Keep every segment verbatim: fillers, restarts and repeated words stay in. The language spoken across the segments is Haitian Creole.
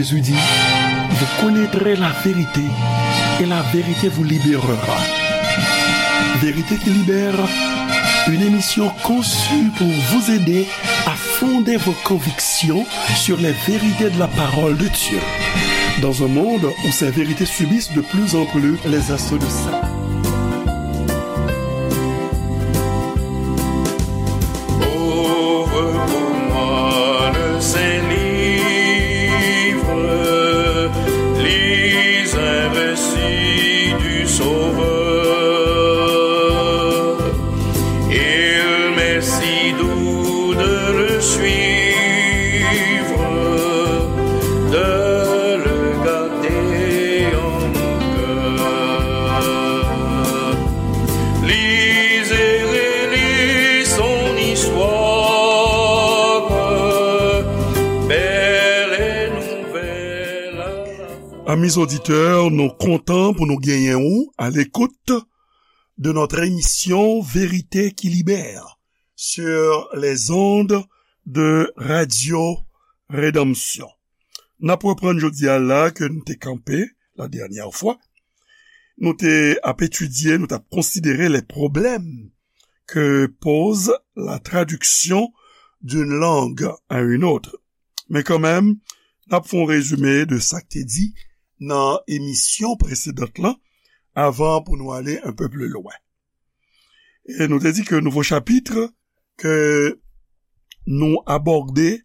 Jésus dit, vous connaîtrez la vérité et la vérité vous libérera. Vérité qui libère, une émission conçue pour vous aider à fonder vos convictions sur les vérités de la parole de Dieu. Dans un monde où ces vérités subissent de plus en plus les assauts de Satan. Ouvre pour moi le saint livre, lis un récit du Sauveur. Il m'est si doux de le suivre, de le garder en mon cœur. Lis et relis son histoire, belle et nouvelle. Amis auditeurs, nou kontan pou nou genyen ou à l'écoute de notre émission Vérité qui libère sur les ondes de Radio Rédemption. N ap reprann jodi a la ke nou te kanpe la dènyè fwa. Nou te ap etidye, nou t ap konsidere les problèmes que pose la traduction d'une langue à une autre. Men kanmenm, n ap fè yon rezime de sa k te di nan emisyon presedant lan, avan pou nou ale un peu plus loin. E nou te di ke nouvo chapit ke nou abòde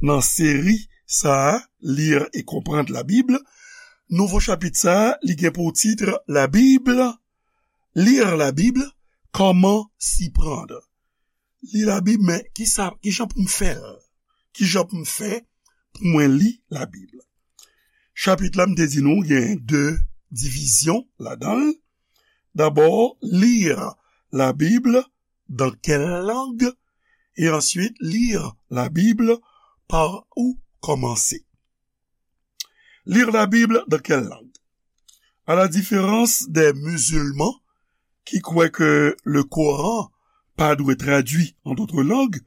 nan seri sa a, Lire et comprendre la Bible, nouvo chapit sa a, li gen pou tit La Bible, Lire la Bible, comment s'y prendre. Li Labib, men ki sa, ki jan pou m fè l? Ki jan pou m fè pou mwen li Labib? Chapit la, m te di nou, gen de divizyon ladan l. D'abord, lire la Bible dans quelle langue? Et ensuite, lire la Bible, par où commencer? Lire la Bible dans quelle langue? À la différence des musulmans qui croient que le Coran pas dû être traduit en d'autres langues,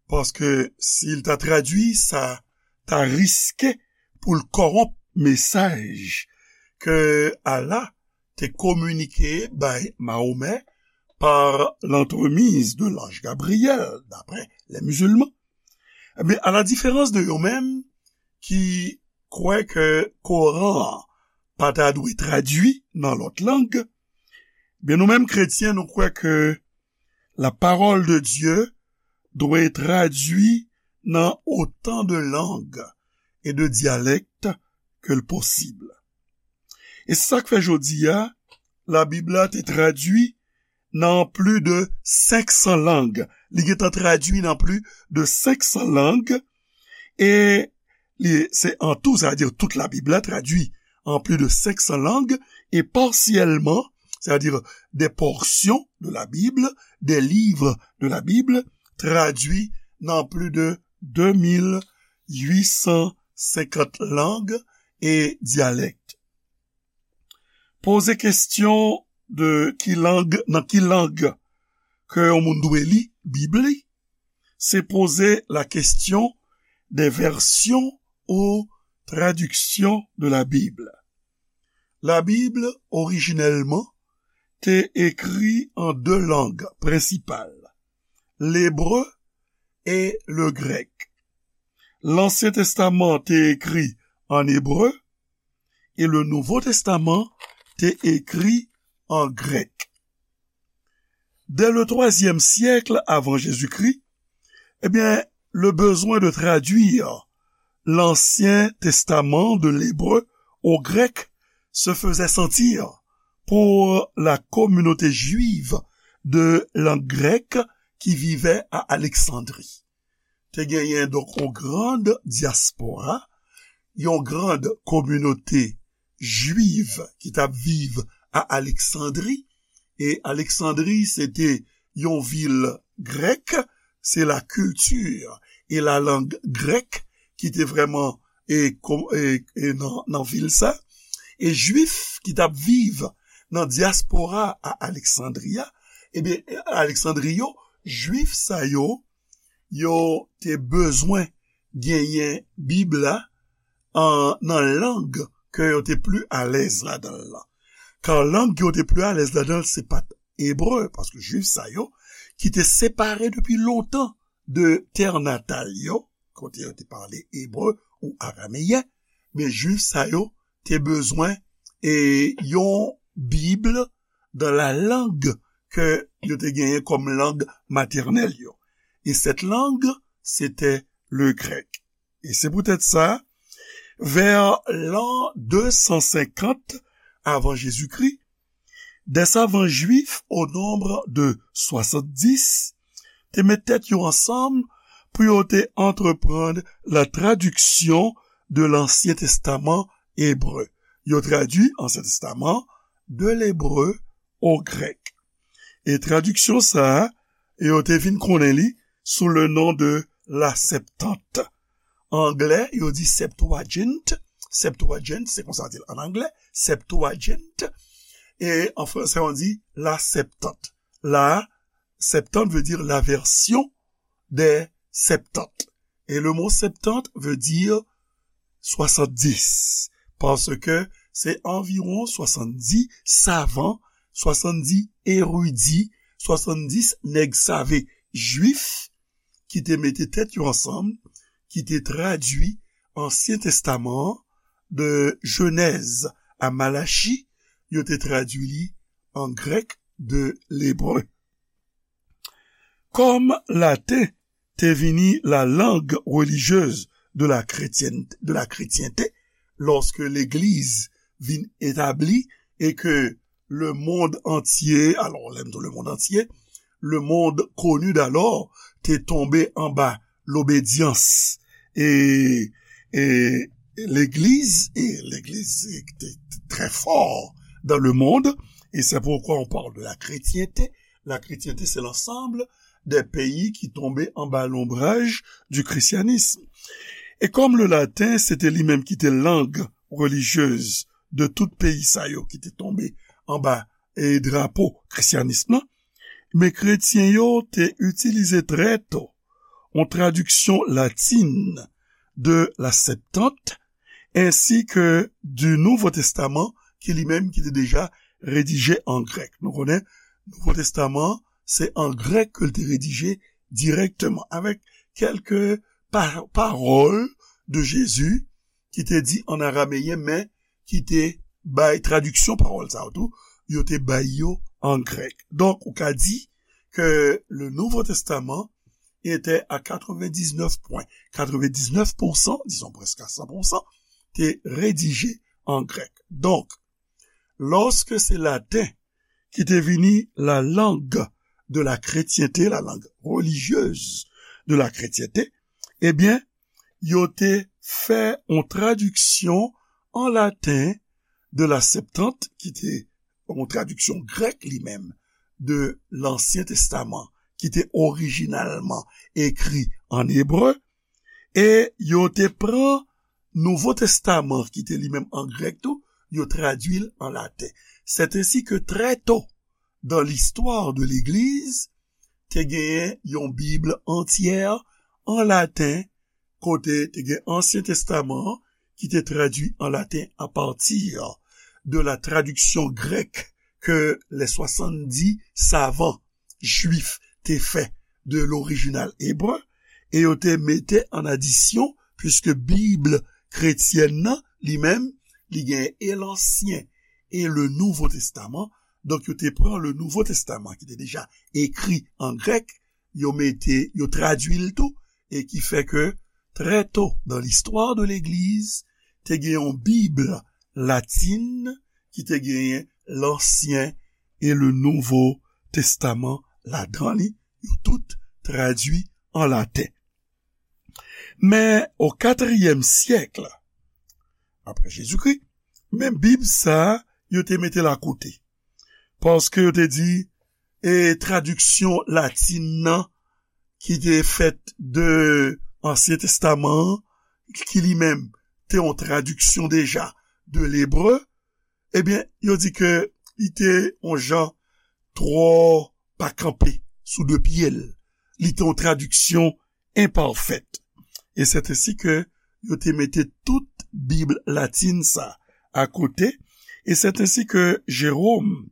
paske si l ta tradui, sa ta riske pou l kòwonp mesaj ke Allah te kominike bay Mahomè par l'entremise de l'ange Gabriel, d'après les musulmans. Ebyen, à la différence de yo menm ki kwè ke Koran an pa ta dwe tradui nan lòt lang, ebyen, nou menm kretyen, nou kwè ke la parole de Dieu doit être traduite dans autant de langues et de dialectes que le possible. E se sa k fè jodi a, Labib la te tradui nan plis de senk san lang. Li gentan tradui nan plis de senk san lang. E li, se an tou, sa vle di tout Labib la tradui an plis de senk san lang. E pasyèlman, c'est-à-dire des portions de la Bible, des livres de la Bible, tradui nan plis de de mil uit san senkant lang e dyalèk. Poze kesyon de ki lang, nan ki lang ke yon moun dwe li Bib li, se poze la question des versions ou traductions de la Bible. La Bib, orijinèlman, te ekri an de lang prensipal, lebre e le grèk. Lansyen Testaman te ekri an ebre e le Nouvo Testaman te ekri an grèk. Dès le troisième siècle avant Jésus-Christ, eh bien, le besoin de traduire l'Ancien Testament de l'hébreu au grec se faisait sentir pour la communauté juive de langue grecque qui vivait à Alexandrie. Te genyen, donk, yon grand diaspora, yon grand kominote jwif ki t ap viv a Aleksandri. E Aleksandri, se te yon vil grèk, se la culture et la langue grecque ki te vrèman, e, ko-, e, e nan, nan vil sa. E jwif ki t ap viv nan dyaspora a Aleksandri a, ebyen, Aleksandri yo, jwif sa yo, yo te bezwen genyen Bib la an, nan lang ke yo te pli alèz ladan l lan. Kan lang ke yo te pli alèz ladan l, se pa t ebre, paske Jwif sa yo, ki te separe depi lontan de tè natal yo, kote yo te pale ebre ou arameyen, men Jwif sa yo te bezwen e yon Bib dans la langue ke yo te genyen kòm lang matènèl yo. Et cette langue, c'était le grec. E se poutèt sa, vè lan de san senkant avan Jezikri, des savants juifs au nombre de soixante-dix te met tèt yo ansanm pou yo te antreprann la tradiksyon de Lansyen Testaman ebre. Yo tradui Ansyen Testaman de lebre o grèk. E tradiksyon sa a, yo te vin konnen li sou le non de la Septante. An anglè, yo di Septuagint. Septuagint, se konsa yo di l an anglè. Septuagint. E an fransè, on dit la Septante. La Septante veut dire la version des Septante. Et le mot Septante veut dire soixante-dix, paske se anviwon swasanndis savan, swasanndis eridi, swasanndis nèg save jwif ki te mete tèt yo ansanm, ki te tradui Ansyen Testaman an, de Jenèz a Malachi, yo te tradui li an grèk de lebre. Kòm laten te vini la langue religieuse de la chrétienne, de la chrétienté, lòske legliz vin etabli e ke le monde entier, alò, lè m di le monde entier, le monde connu d'alors te tonbe anba lobedyans e, e legliz, e legliz te, te très fort dans le monde, et c'est pourquoi on parle de la chrétienté. La chrétienté, c'est l'ensemble des pays qui tombaient anba l'ombrage du christianisme. E kòm le laten, se te li menm ki te lang relijyez de tout peyi sa yo ki te tonbe anba e drapo krisyanis lan, men kretyen yo te itilize trè to yon tradiksyon latin de la Septante, ensi ke du Nouveau Testament, ki li menm ki te deja redije an grèk. Nou konnen, Nouvo Testaman, se an grèk ke l te redije dirèkteman, avèk kèlke pa-, pawòl de Jezi ki te di an arameyen, men ki te bay tradiksyon pawòl sa yo tou, yo te bay yo an grèk. Donk, ou ka di ke le Nouveau Testament était à quatre-vingt-dix-neuf point quatre-vingt-dix-neuf pour cent, disons presque à cent pour cent, te redije an grèk. Donk, lòske se laten ki te vini la langue de la chrétienté, la langue religieuse de la chrétienté, ebyen, yo te fè yon tradiksyon an laten de la Septante, ki te yon tradiksyon grèk li menm de Lansyen Testaman, ki te orijinalman ekri an ebre, e yo te pran Nouvo Testaman, ki te li menm an grèk tou, yo tradui l an laten. C'est ainsi que très tôt dans l'histoire de l'Église, te genyen yon Bib antyè an laten, kote te gen Ansyen Testaman an ki te tradui an laten à partir de la traduction grecque que les soixante-dix savants juifs te fè de l'original hébreu, e yo te mete an adisyon, puisque Bib kretyèn nan, li menm, li gen e Lansyen e le Nouvo Testaman. Donk, yo te pran le Nouvo Testaman, ki te deja ekri an grèk, yo mete, yo tradui l tou, e ki fè ke, très tôt dans l'histoire de l'Église, te gen yon Bib latin, ki te genyen Lansyen e le Nouvo Testaman ladan li, yo tout tradui an laten. Men, o katriyèm syèk, apre Jezikri, men Bib sa a, yo te mete l akote. Paske yo te di, e tradiksyon latin nan, ki te fèt de Ansyen Testaman an, ki li menm te yon tradiksyon deja de lebre, ebyen, yo di ke li te yon jan twò pa kanpe sou de pye l. Li te yon tradiksyon enpafèt. E c'est ainsi que yo te mete tout Bib latin sa akote, e c'est ainsi que Jérôme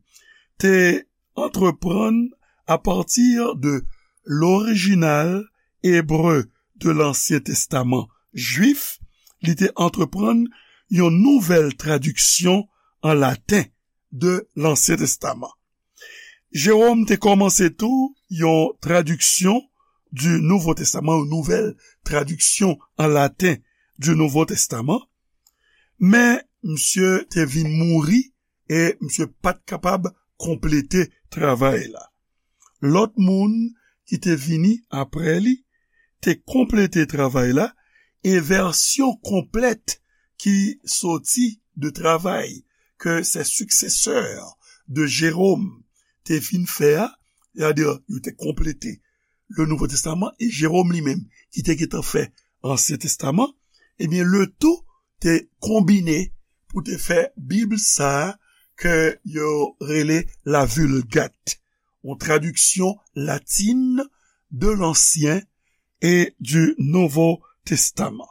te entreprendre à partir de l'original hébreu de l'Ancien Testament juif, li te entreprendre yon nouvèl tradiksyon an laten de Lansyen Testaman. Jewòm te kòmanse tou yon tradiksyon du Nouveau Testament, yon nouvèl tradiksyon an laten du Nouveau Testament, men misye te vin mouri e misye pa t kapab konplete travay la. Lòt moun ki te vini apre li te konplete travay la, e vèsyon konplèt ki soti de travay ke ses successeurs de Jérôme te fin fè a, sètadi yo te konplete le Nouveau Testament, e Jérôme li menm ki te gentan fè Ansyen Testaman, ebyen, le tout te konbine pou te fè Bib sa a ke yo rele la Vulgate, yon tradiksyon latin de l'Ancien et du Nouveau Testament.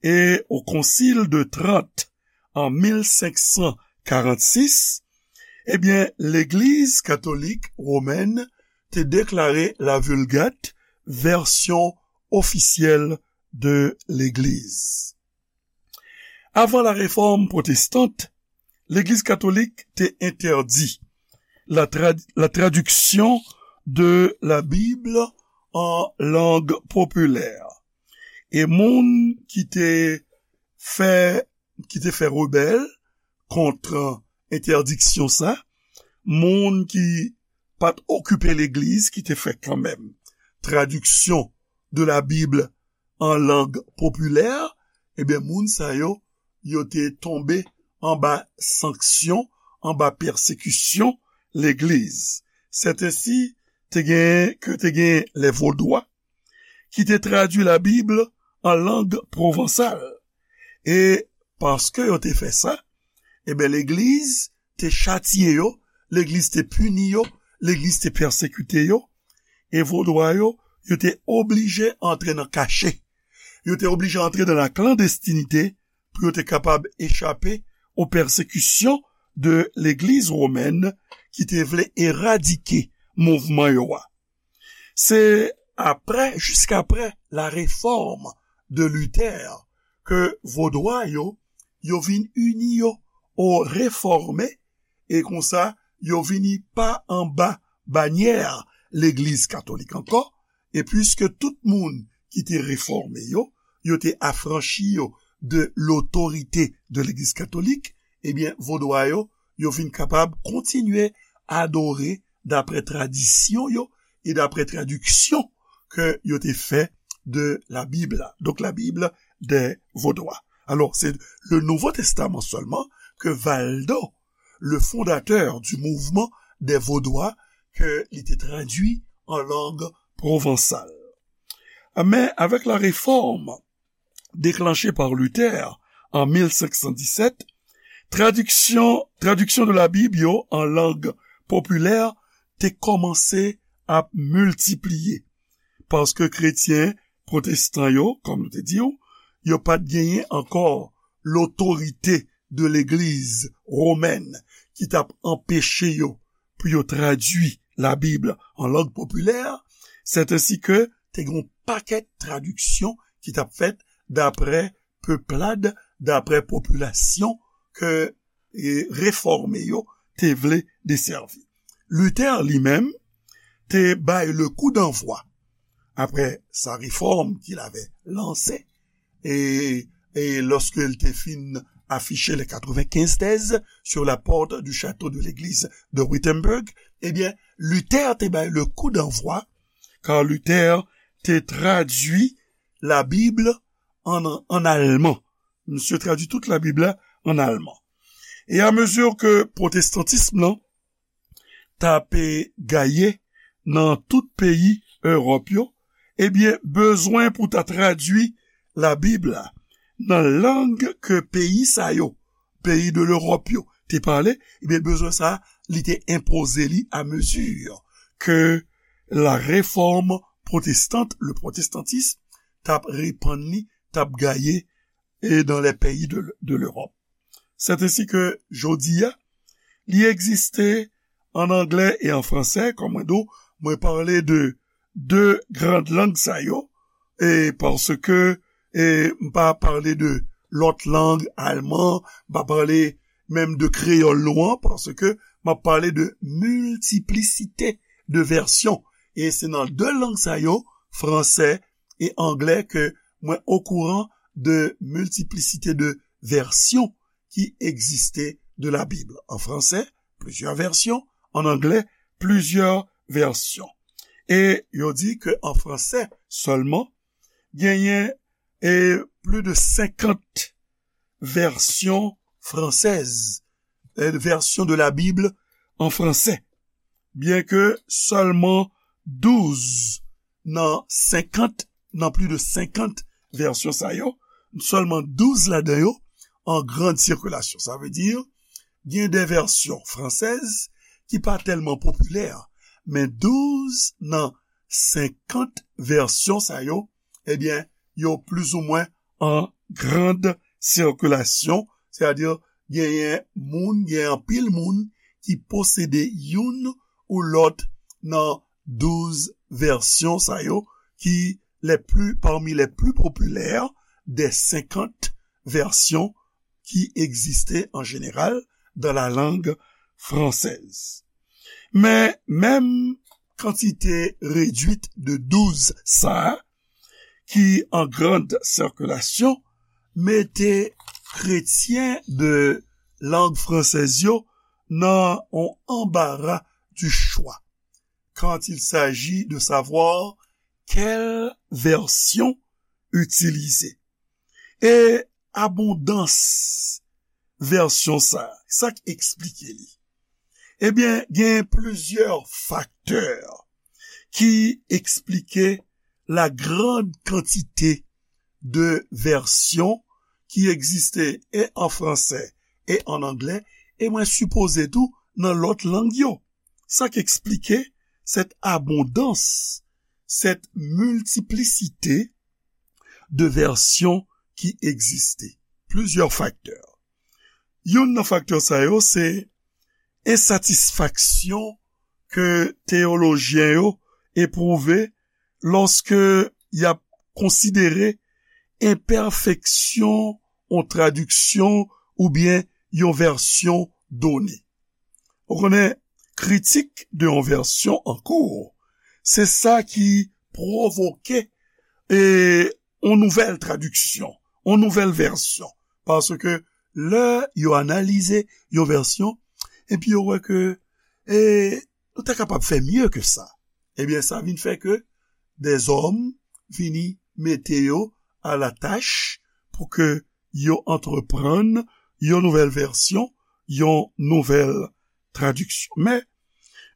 E o Concile de Trente an mil senk san karannsis, ebyen, Legliz Katolik Womèn te deklare la Vulgate vèsyon ofisyèl de Legliz. Avan la Réforme protestante, Legliz Katolik te entèdi la trad-, la traduction de la Bible en langue populaire. E moun ki te fè, ki te fè rebèl kont entèdiksyon sa, moun ki pa t okipe legliz, ki te fè kanmenm tradiksyon de la Bib an lang popilè, ebyen, moun sa yo, yo te tonbe anba sanksyon, anba pèsekisyon legliz. Sètensi, te gen, ke te gen les Vaudois, ki te tradui la Bib an lang pwovansal. E paske yo te fè sa, ebyen, legliz te chatye yo, legliz te pini yo, legliz te pèsekite yo, e Vodwa yo, yo te oblije antre nan kache. Yo te oblije antre nan la klandestinite pou yo te kapab echape o pèsekisyon de legliz womèn ki te vle eradike mouvman yo a. Se apre, jiskapre la Réforme de Luther, ke Vodwa yo, yo vin ini yo o Refòme, e konsa, yo vini pa anba banyè Legliz Katolik ankò, e piske tout moun ki te refòme yo, yo te afranchi yo de lotorite de Legliz Katolik, ebyen, Vodwa yo, yo vin kapab kontinye adore daprè tradisyon yo e daprè tradiksyon ke yo te fè de la Bib la. Donk, la Bib dè Vodwa. Alò, se le Nouveau Testament sèlman ke Valdo, le fondateur du mouvement des Vaudois, ke li te tradui an lang pwovansal. Men, avèk la Réforme déclenchée par Luther an mil senk san disèt, tradiksyon, tradiksyon de la Bib yo an lang popilè te kòmanse ap miltipliye, paske kretyen pwotestan yo, kòm nou te di w, yo pa t genyen ankò lotorite de legliz womèn ki t ap anpeche yo pou yo tradui la Bib an lang popilè, sètensi ke te gen yon pakèt tradiksyon ki t ap fèt daprè peplad, daprè popilasyon ke, e, refòme yo te vle desèvi. Luther li menm te bay le coup d'envoi après sa réforme qu'il avait lancée, et, et lorsqu'il te fin affiché les quatre-vingt-quinze thèses sur la porte du château de l'église de Wittenberg, ebyen, Luther te bay le coup d'envoi, car Luther te tradui la Bib an, an alman. Misye tradui tout la Bib la an alman. E a mezi ke pwotestantism lan t ap gaye nan tout peyi Ewòp yo, ebyen, bezwen pou ta tradui la Bib la nan lang ke peyi sa yo, peyi de l'Europe yo, te pale, ebyen, bezwen sa, li te enpoze li a mezi ke la réforme protestante, le protestantisme, t ap repann li, t ap gaye et dans les pays de, de l'Europe. C'est ainsi que jodi a, li egziste an anglè e an fransè, kòm mwen di w, mwen pale de de gran lang sa yo, e paske e m pa pale de lòt lang, alman, m pa pale menm de kreyòl nou an, paske m ap pale de miltiplisite de vèsyon. E se nan de lang sa yo, fransè e anglè, ke mwen okouran de miltiplisite de vèsyon ki egziste de la Bible. En français, plusieurs versions. En anglais, plusieurs versions. E yo di ke an fransè sèlman, genyen e plis de senkant vèsyon fransèz, e vèsyon de la Bible an fransè. Byen ke sèlman douz nan senkant, nan plis de senkant vèsyon sa yo, sèlman douz ladan yo an grand sikilasyon. Sa vle di, gen de vèsyon fransèz ki pa tèlman popilè, men douz nan senkant vèsyon sa yo, ebyen, yo plizoumwen an grand sikilasyon, sètadi genyen moun, genyen anpil moun ki posede youn ou lòt nan douz vèsyon sa yo, ki les plus, parmi les plus populaires des senkant vèsyon ki egziste an jeneral dans la langue française. Men, menm kantite redwit de douz sa a, ki an grand sikilasyon, mete kretyen de lang fransèz yo nan on anbara du chwa quand il s'agit de savoir quelle version utiliser. E abondans vèsyon sa, sa k eksplike li? Ebyen, gen plizyè faktè ki eksplike la grande quantité de versions ki egziste e an fransè e an anglè, e mwen sipoze tou nan lòt lang yo. Sa k eksplike cette abondance, cette multiplicité de versions ki egziste. Plizyè faktè. Youn nan faktè sa yo se ensatisfaksyon ke teyolojyen yo epwouve lòske y ap konsidere enpèfeksyon yon tradiksyon oubyen yon vèsyon done. Ou konnen, kritik de yon vèsyon an kou, se sa ki pwovoke e yon nouvèl tradiksyon, yon nouvèl vèsyon. Paske lè yo analize yon vèsyon, epi yo wè ke e, nou ta kapab fè mye ke sa. Ebyen, sa vin fè ke dèzòm vini mete yo a la tach pou ke yo antreprann yon nouvèl vèsyon, yon nouvèl tradiksyon. Men,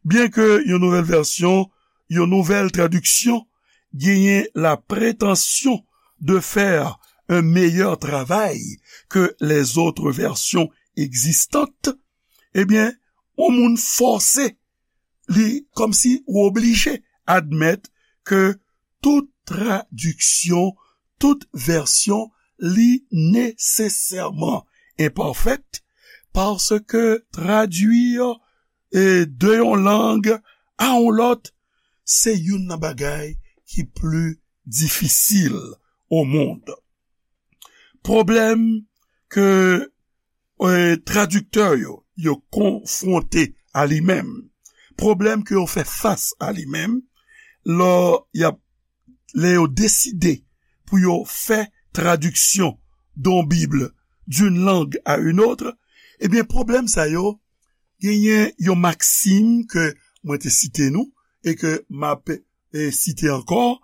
byen ke yon nouvèl vèsyon, yon nouvèl tradiksyon genyen la prétention de faire un meilleur travail que les autres versions existantes, ebyen, yon moun fòse, li kòmsi ou oblije admèt ke tout tradiksyon, tout vèsyon, li nesesèman enpafèt, paske tradui e, de yon lang a yon lòt, se youn nan bagay ki pli difisil o mond. Pwoblèm ke e, tradiktè yo, yo konfwonte a li menm, pwoblèm ke yo fè fas a li menm, lè y ap, lè yo deside pou yo fè tradiksyon d'une Bible d'une langue à une autre, ebyen, pwoblèm sa yo, genyen yon maksim ke mwen te site nou, e ke m ap e, site ankò,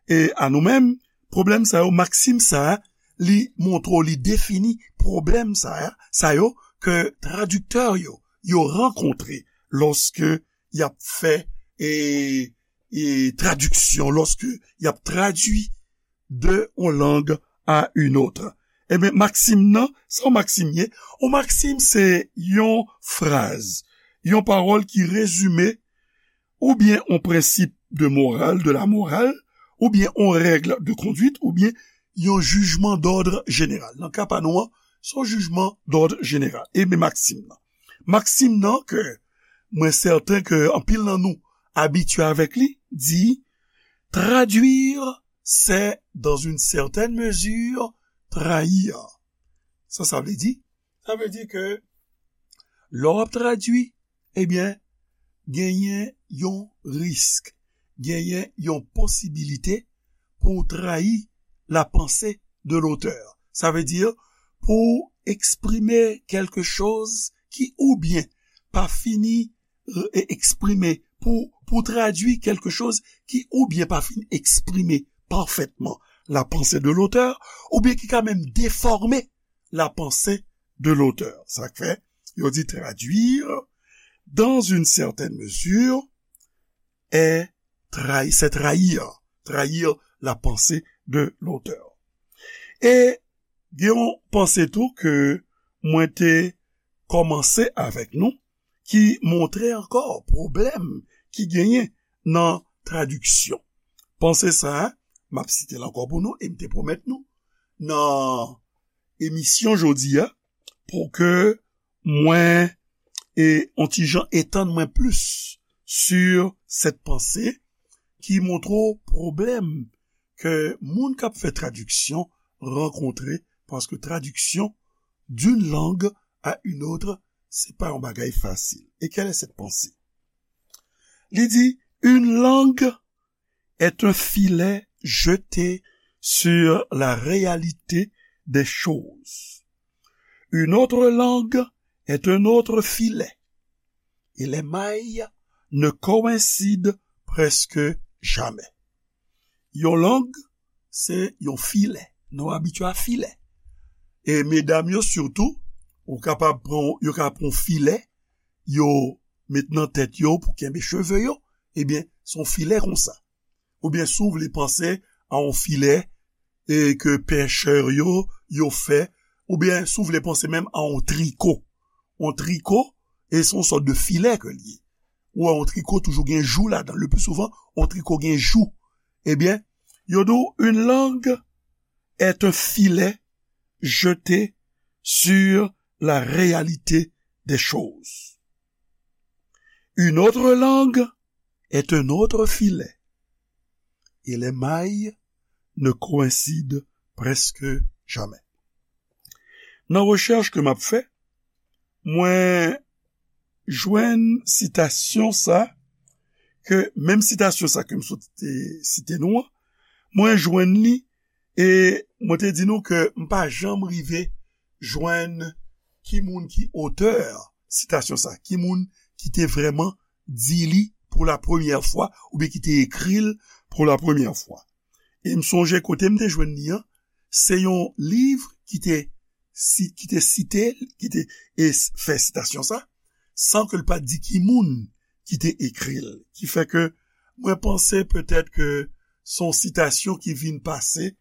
e a nou menm, pwoblèm sa yo, maksim sa a, li montre w, li defini pwoblèm sa a, sa yo, ke tradiktè yo, yo rankontre lòske y ap fè e, e tradiksyon, lòske y ap tradui de yon lang a yon lòt. Ebyen, maksim nan, sa yon maksim ye? Yon maksim se yon fraz, yon pawòl ki rezime oubyen yon prensip de moral, de la morale, oubyen yon règle de conduite, oubyen yon jijman d'ordre général. Nan ka pa nou an, se yon jijman d'ordre général. E men maksim nan. Maksim nan ke mwen sèten ke anpil nan nou abitye avèk li, di, traduire, c'est dans une certaine mesure trahir. Sa, sa vle di? Sa vle di ke lè w ap tradui, ebyen, genyen yon risk, genyen yon posibilite pou w trayi la pensée de l'auteur. Sa vle di pou w eksprime kèlke choz ki oubyen pa fini e eksprime, pou, pou tradui kèlke choz ki oubyen pa fin eksprime pafètman la pensée de l'auteur, oubyen ki ka menm defòme la pensée de l'auteur. Sa k fè yo di traduire dans une certaine mesure est trahi, c'est trahir, trahir la pensée de l'auteur. E gen yon panse tou ke mwen te kòmanse avèk nou, ki montre ankò pwoblèm ki genyen nan tradiksyon. Panse sa a, m ap site l ankò pou nou, e m te pwomèt nou nan emisyon jodi a, pou ke mwen e on ti jan etann mwen plis sur cette pensée ki montre w pwoblèm ke moun k ap fè tradiksyon rankontre, paske tradiksyon d'une langue à une autre, se pa yon bagay fasil. Et quelle est cette pensée? Li di, une langue est un filet jeté sur la réalité des choses. Une autre langue est un autre filet. Et les mailles ne coïncident presque jamais. Yon lang, se yon filè. Nou abitye a filè. E medam yo sitou, ou kapab pran, yo ka pran yon filè, yo met nan tèt yo pou kenbe cheve yo, ebyen, se yon filè konsa. Oubyen si w vle panse a yon filè, e ke pechè yo, yo fè, oubyen si w vle panse menm a yon triko. Yon triko, e se yon sòt de filè ke l ye. Ou wè yon triko toujou gen jou ladan. Le plus souvent, yon triko gen jou. Ebyen, yo di w, une langue est un filet jeté sur la réalité des choses. Une autre langue est un autre filet. Et les mailles ne coïncident presque jamais. Nan rechèch ke m ap fè, mwen jwenn sitasyon sa, ke menm sitasyon sa ke m sot te site nou an, mwen jwenn li, e mwen te di nou ke m pa janm rive jwenn ki moun ki otè sitasyon sa, ki moun ki te vrèman di li pou la premyè fwa, oubyen ki te ekri l pou la premyè fwa. E m sonje kote m te jwenn li an, se yon liv ki te si, ki te site, ki te e s-, fè sitasyon sa, san ke l pa t di ki moun ki te ekri l. Ki fè ke mwen panse petèt ke se yon sitasyon ki vin pase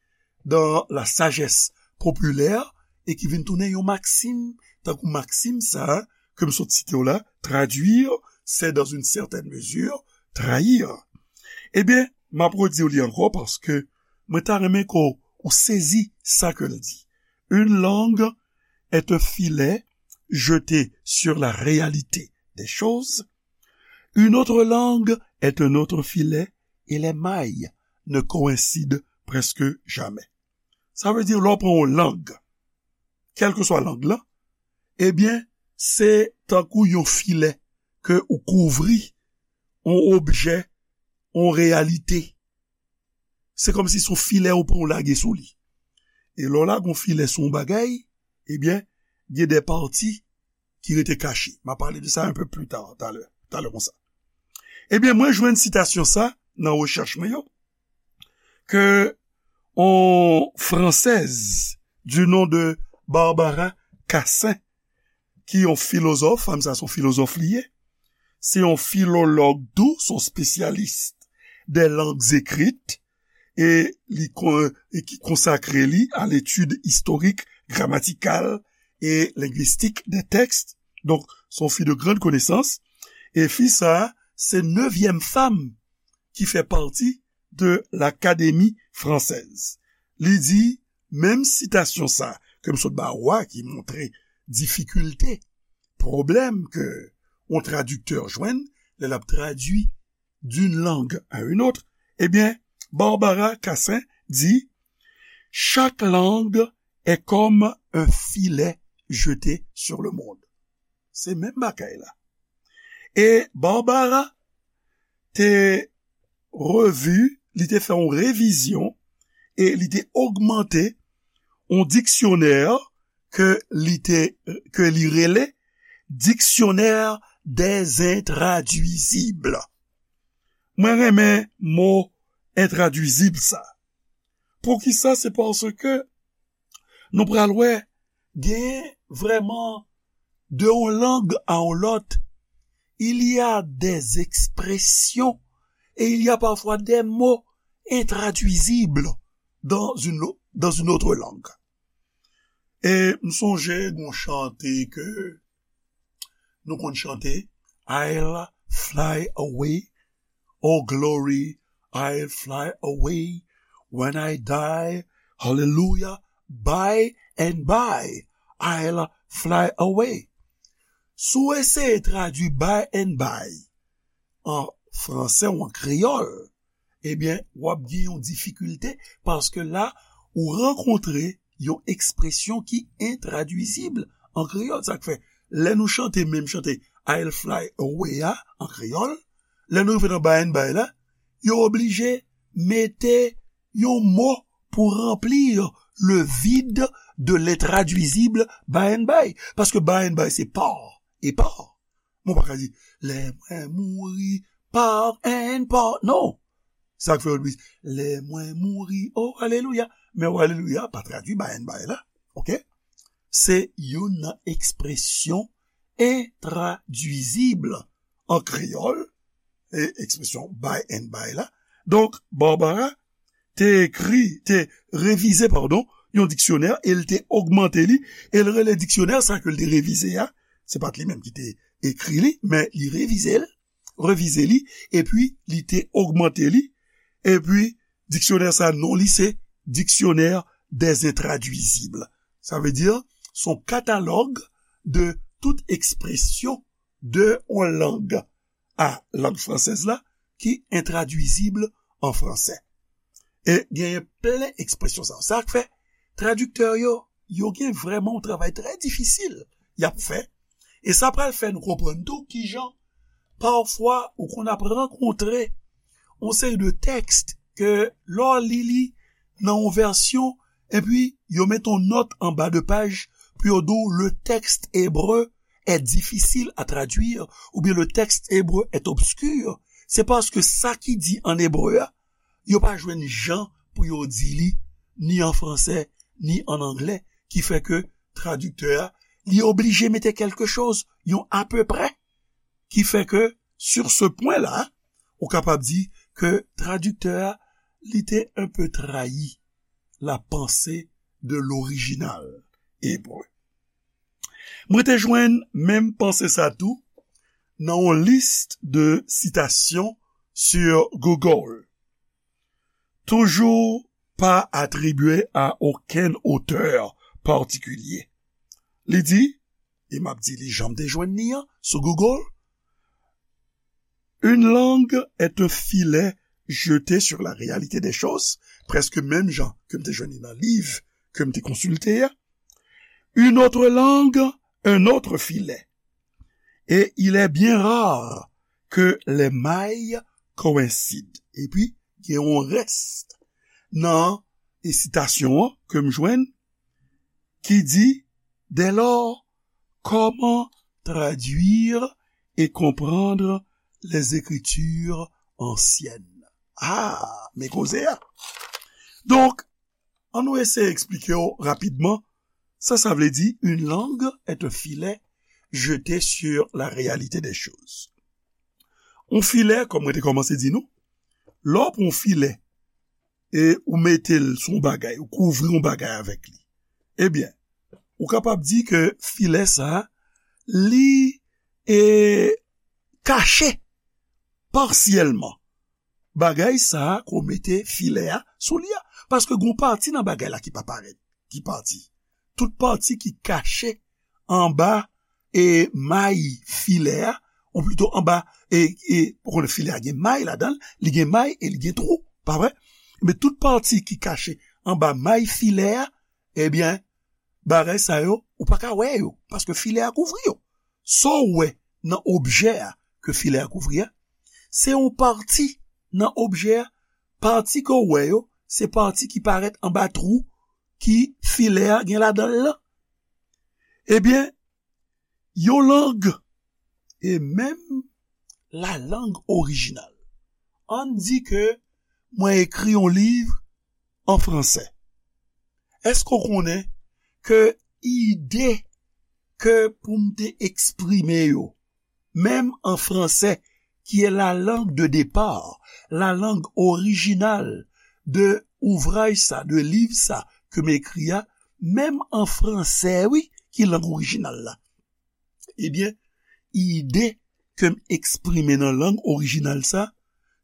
dans la sagesse populaire e ki vin tounen yon maksim, tankou maksim sa a ke m sot site w la, traduire, c'est dans une certaine mesure trahir. Ebyen, m ap redi w li ankò paske mwen ta renmen ke w sezi sa ke l di. Une langue est un filet jeté sur la réalité des choses. Une autre langue est un autre filet et les mailles ne coïncident presque jamais. Sa vle di, lè w pran yon lang, kèlkeswa lang lan, ebyen, se tankou yon filè ke ou kouvri yon objè, yon reyalite. Se kòmsi se yon filè ou pran ou lage sou li. E lè w lage yon filè sou yon bagay, ebyen, gen de pati ki rete kache. M a pale de sa un peu plus tard, talè, talè konsa. Ebyen, mwen jwenn sitasyon sa nan rechèch mwen yo, ke yon Française du nom de Barbara Cassin, ki yon filozòf, fanm sa se yon filozòf li ye, se yon filològ tou, se yon spesyalis des langues écrites, e li kon-, e ki konsakre li à l'étude historique, grammaticale et linguistique des textes. Donk, se yon fi de grande connaissance. E fi sa, se nevyèm fanm ki fè pati de l'Académie française. Li di, Menm sitasyon sa ke m sot ba ou a ki montre difikilte, pwoblèm ke yon tradiktè jwenn lè l ap tradui d'une langue à une autre, ebyen, Barbara Cassin di, chaque langue est comme un filet jeté sur le monde. Se menm bagay la. E Barbara te revi, li te fè yon revizyon e li te ogmante yon diksyonè ke li te, ke li rele Dictionnaire des Intraduisibles. Mwen renmen mo entradwizib sa. Poukisa? Se paske nou pral wè gen vrèman de yon lang a yon lòt, il y a des expressions et il y a parfois des mots intraduisibles dans une, dans une autre langue. E m sonje gon chante ke nou konn chante, I'll fly away, oh glory, I'll fly away when I die, hallelujah, by and by, I'll fly away. Si w eseye tradui by and by an fransè ou an kreyòl, ebyen, w ap gen yon difikilte paske la, ou rankontre yon ekspresyon ki entradwizib an kreyòl. Sa k fè, lè nou chante menm chante I'll fly away a an kreyòl, lè nou rive nan by and by la, yo oblije mete yon mo pou ranpli le vide de l'intradwizib by and by. Paske by and by se pa e pa. Mwen pa ka di, lè mwen mouri, pa and pa. Non. Sa k fè yo di, lè mwen mouri, oh, alelouya. Men oh, alelouya, pa tradui by and by la. Oke? Se youn nan ekspresyon entradwizib an kreyòl, e ekspresyon by and by la. Donk, Barbara te ekri, te revize, padon, yon diksyonè, e l te ogmante li, e l rele diksyonè sa ke l te revize a, se pa t li menm ki te ekri li, men li revize l, revize li, epi li te ogmante li, epi diksyonè sa, non li se Dictionnaire des Intraduisibles. Sa vle di, se yon katalòg de tout ekspresyon de yon lang a lang fransèz la ki entradwizib an fransè. E genyen plen ekspresyon sa. Sa k fè tradiktè yo, yo gen vrèman yon travay trè difisil y ap fè. E sa pral fè nou konprann tou kijan, pafwa, ou konn ap rankontre yon seri de tèks ke lè w li li nan yon vèsyon, epi yo met yon nòt anba de paj pou yo di w le texte hébreu est difficile à traduire, oubyen le texte hébreu est obscur, se paske sa ki di an ebre a, yo pa jwenn jan pou yo di li, ni an fransè, ni an anglè, ki fè ke tradiktè a, li oblije mete kèlke choz, yon apeprè, ki fè ke, sur ce point-là, ou kapab di ke tradiktè a, li te un peu trahi la pensée de l'original hébreu. Mwen te jwenn menm panse sa tou nan yon lis de sitasyon sur Google. Toujours pas attribué à aucun auteur particulier. Li di, e m ap di li jan m te jwenn li an sou Google, une langue est un filet jeté sur la réalité des choses, prèske menm jan ke m te jwenn li nan liv ke m te konsilte a. Une autre langue, un autre filet. Et il est bien rare que les mailles coïncident. Epi, gen yon rès nan e sitasyon an ke m jwenn ki di, dès lors, comment traduire et comprendre les Écritures anciennes? Ah, men koze a. Donk, ann nou eseye eksplike w rapidman sa sa vle di, une langue est un filet jeté sur la réalité des choses. Yon filè, kòm mwen te kòmanse di nou, lè w pran yon filè e ou mete l sou yon bagay, ou kouvri yon bagay avèk li, ebyen, ou kapab di ke filè sa a, li e kache pasyèlman bagay sa a ke w mete filè a sou li a. Paske gen yon pati nan bagay la ki pa parèt. ki pati. Tout pati ki kache anba e may filè a, ou plito anba e, e ou konnen filè a gen may ladan l, li gen may e li gen twou, pa vre? Men tout pati ki kache anba may filè a, ebyen, bagay sa yo, ou pa ka wè yo, paske filè a kouvri yo. Sa w wè nan objè a ke filè a kouvri a, se yon pati nan objè a, pati ke w wè yo, se pati ki parèt anba twou ki filè a gen ladan l lan. Ebyen, yon lang, e menm lalang orijinal. Ann di ke mwen ekri yon liv an fransè. Èske w konnen ke ide ke pou m te eksprime yo, menm an fransè, ki est la langue de départ, la langue originale de ouvraj sa, de liv sa ke m ekri a, menm an fransè, wi, ki lang orijinal la. Ebyen, ide ke m eksprime nan lang orijinal sa,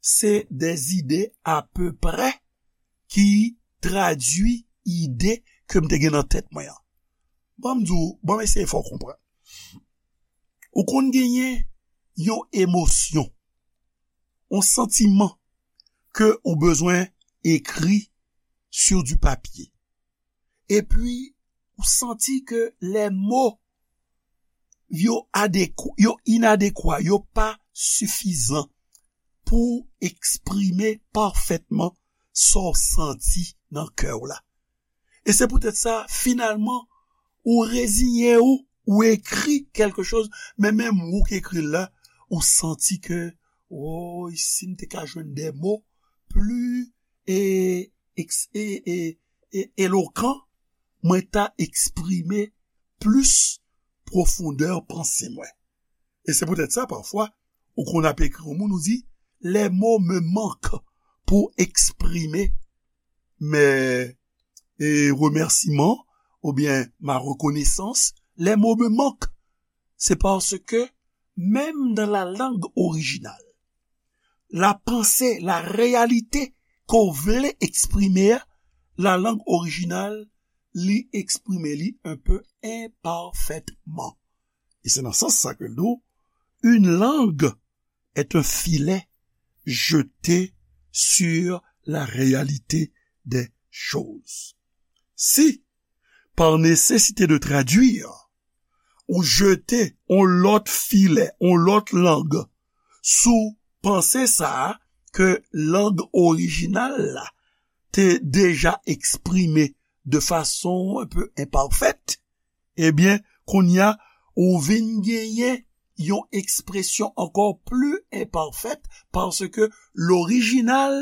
se de zide apeprè ki tradui ide ke m te gen nan tèt mwen an. Ban m di w, ban m eseye fè w konprann. Ou konn genyen yon emosyon, yon santiman ke ou bezwen ekri sur du papier. Epi, ou santi ke les mots yo adekwa, yo inadekwa, yo pa sifizan pou eksprime pafètman sa w santi nan kè w la. E se poutèt sa, finalman, ou reziyen w, ou ekri kèlke choz, men menm ou k ekri l la, ou santi ke, woy, si m te ka jwenn de mo pli e, eks- e, e, e, elokan, mwen ta eksprime plis pwofondè panse mwen. E se poutèt sa, pafwa, ou konn ap ekri yon moun, ou di, les mots me manquent pour exprimer mes e, remerciements oubyen ma reconnaissance, les mots me manquent. Se paske menm nan la lang orijinal, la panse, la reyalite ke w vle eksprime a, la lang orijinal, li eksprime li un peu imparfaitement. E se nan sans sa ke l di w, une langue est un filet jeté sur la réalité des choses. Si, par nécessité de traduire, ou jete yon lòt filè, yon lòt lang sou panse sa a ke lang orijinal la te deja eksprime de fason un peu imparfaite, ebyen, kounye a, ou vin genyen yon ekspresyon ankò pli enpafèt, paske lorijinal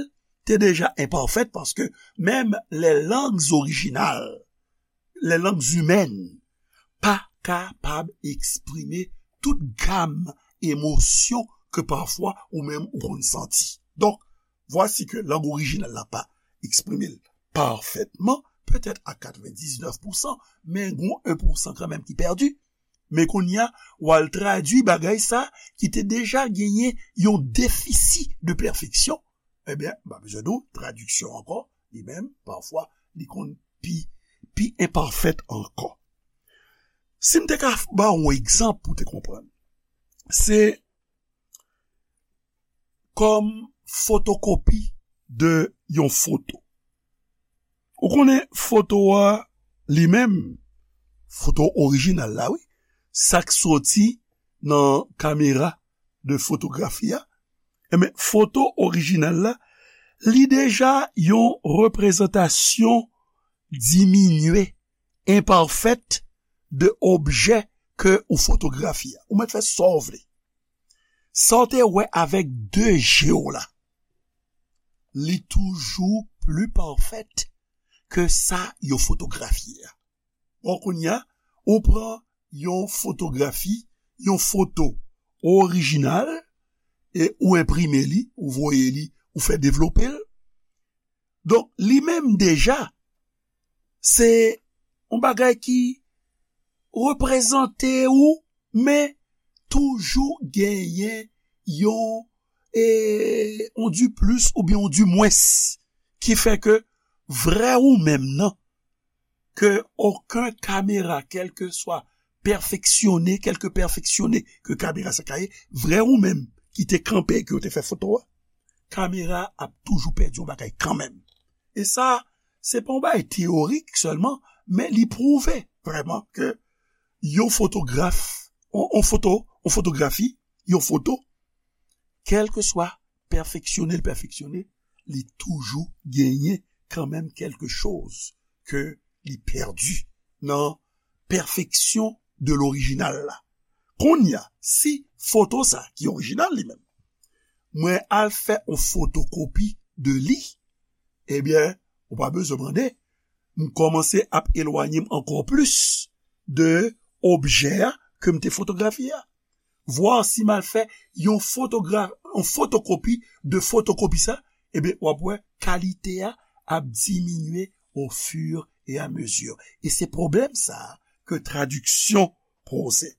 te deja enpafèt, paske menm les langues originales, les langues humaines, pa kapab eksprime tout gam emosyon ke pafwa ou menm ou konn santi. Donk, vwasi ke lang orijinal la pa eksprime l pafètman, petèt a katrevendiznèf pousan, men gon en pousan kanmenm ki pèdi. Men kounye a, w al tradui bagay sa ki te deja genyen yon defisi de pèfeksyon, ebyen, m pa bezwen di w, tradiksyon ankò, li menm, pafwa, li konn pi, pi enpafèt ankò. Si m te ka ba w yon egzanp pou w te konprann, se kòm fotokopi de yon foto. Ou konnen foto a li menm, foto orijinal la, wi, sa k soti nan kamera de fotografi a, enben, foto orijinal la, li deja yon reprezantasyon diminye, enpafèt de objè ke ou fotografye a. Ou mèt fè sa w vle. Sa w te wè avèk de je w la, li toujou pli pafèt ke sa yo fotografye a. Bon, kounye a, ou pran yon fotografi, yon foto orijinal, e ou enprime li, ou voye li, ou fè devlope l. Donk, li menm deja, se yon bagay ki reprezante ou, men toujou genyen yon, e, yon diplis oubyen yon dimwens ki fè ke vrè ou menm nan, ke okenn kamera, kèlkeswa pèfeksyone, kèlke pèfeksyone ke kamera sa ka ye, vrè ou menm ki te kanpe, ke w te fè foto a, kamera ap toujou pèdi yon bagay kanmenm. E sa, se pa yon bagay teyorik sèlman, men li pwouve vrèman ke yon fotograf, yon, yon foto, yon fotografi, yon foto, kèlkeswa pèfeksyone l pèfeksyone, li toujou genyen kanmenm kèlke choz ke li pèdi nan pèfeksyon de lorijinal la. Kounye a, si foto sa ki orijinal li menm, mwen al fè yon fotokopi de li, ebyen, ou pa bezwen mande, m kòmanse ap elwanye m ankò plis de objè a ke m te fotografye a. Vwa si m al fè yon fotogra-, yon fotokopi de fotokopi sa, ebyen, w ap wè kalite a ap diminye au fur et à mesure. E se pwoblèm sa a ke tradiksyon poze.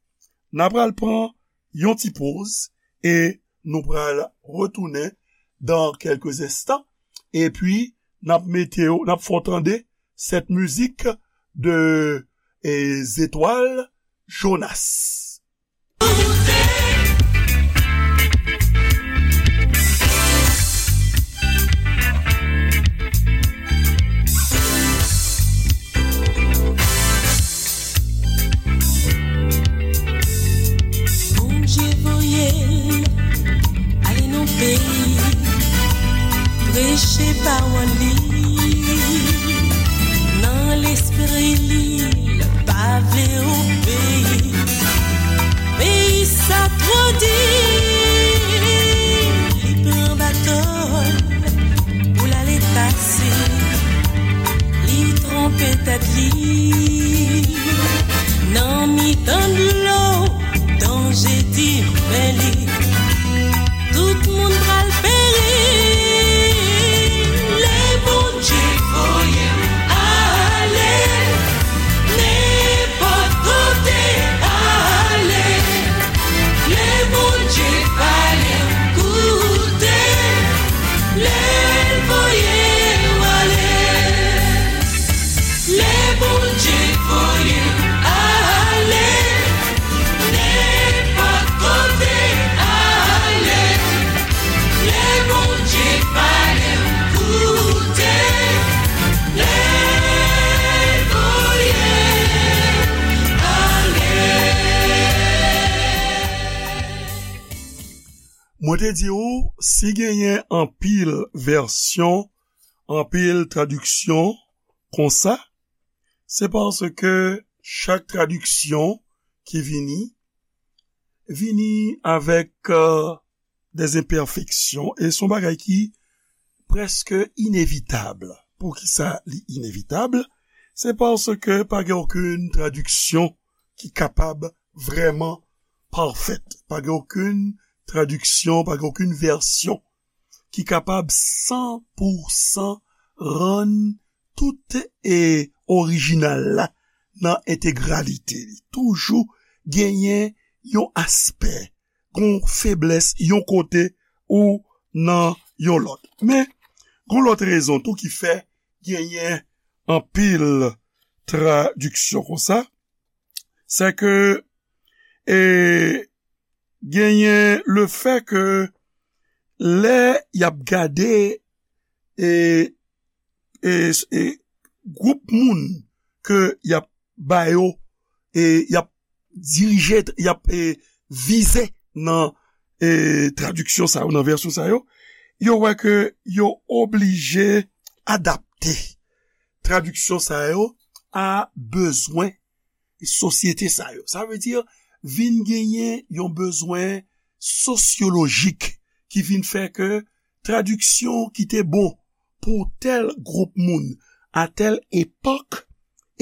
N a pral pran yon ti poz e nou pral retounen dans quelques instants. Epi, n ap mete w, n ap fè w tande cette musique de, eh, Zetwal Jonas. Bondye voye l ale nan peyi, preche pawòl li nan lespri li, l pa vle obeyi. Peyi sa twò di, li pran bato l pou l ale pase. Li twonpe tèt li nan mitan dlo, danje di men li. Tout moun pral peri. Lè Bondye voye m ale, nenpòt kote ale. Lè Bondye pale m koute, lè l voye w ale. Lè Bondye voye m ale, nenpòt kote ale. Lè Bondye pale m koute, lè l voye m ale. Mwen te di w, si genyen anpil vèsyon, anpil tradiksyon konsa, se paske chak tradiksyon ki vini, vini avèk, euh, des imperfections, e se yon bagay ki prèske inevitab. Poukisa li inevitab? Se paske pa gen okenn tradiksyon ki kapab vrèman pafèt. Pa gen okenn tradiksyon, pa gen okenn vèsyon ki kapab san pou san rann tout, e, orijinal la nan entegralite li. Toujou genyen yon aspè, yon feblès, yon kote ou nan yon lòt. Men, yon lòt rezon tou ki fè genyen anpil tradiksyon konsa, se ke, e, genyen le fè ke lè y ap gade, e, e, e, gwoup moun ke y ap ba yo, e, y ap dirije, y ap, e, vize nan, e, tradiksyon sa yo, nan vèsyon sa yo, yo wè ke yo oblije adapte tradiksyon sa yo a bezwen sosyete sa yo. Sa vle di, vin genyen yon bezwen sosyolojik ki vin fè ke tradiksyon ki te bon pou tèl gwoup moun a tèl epòk,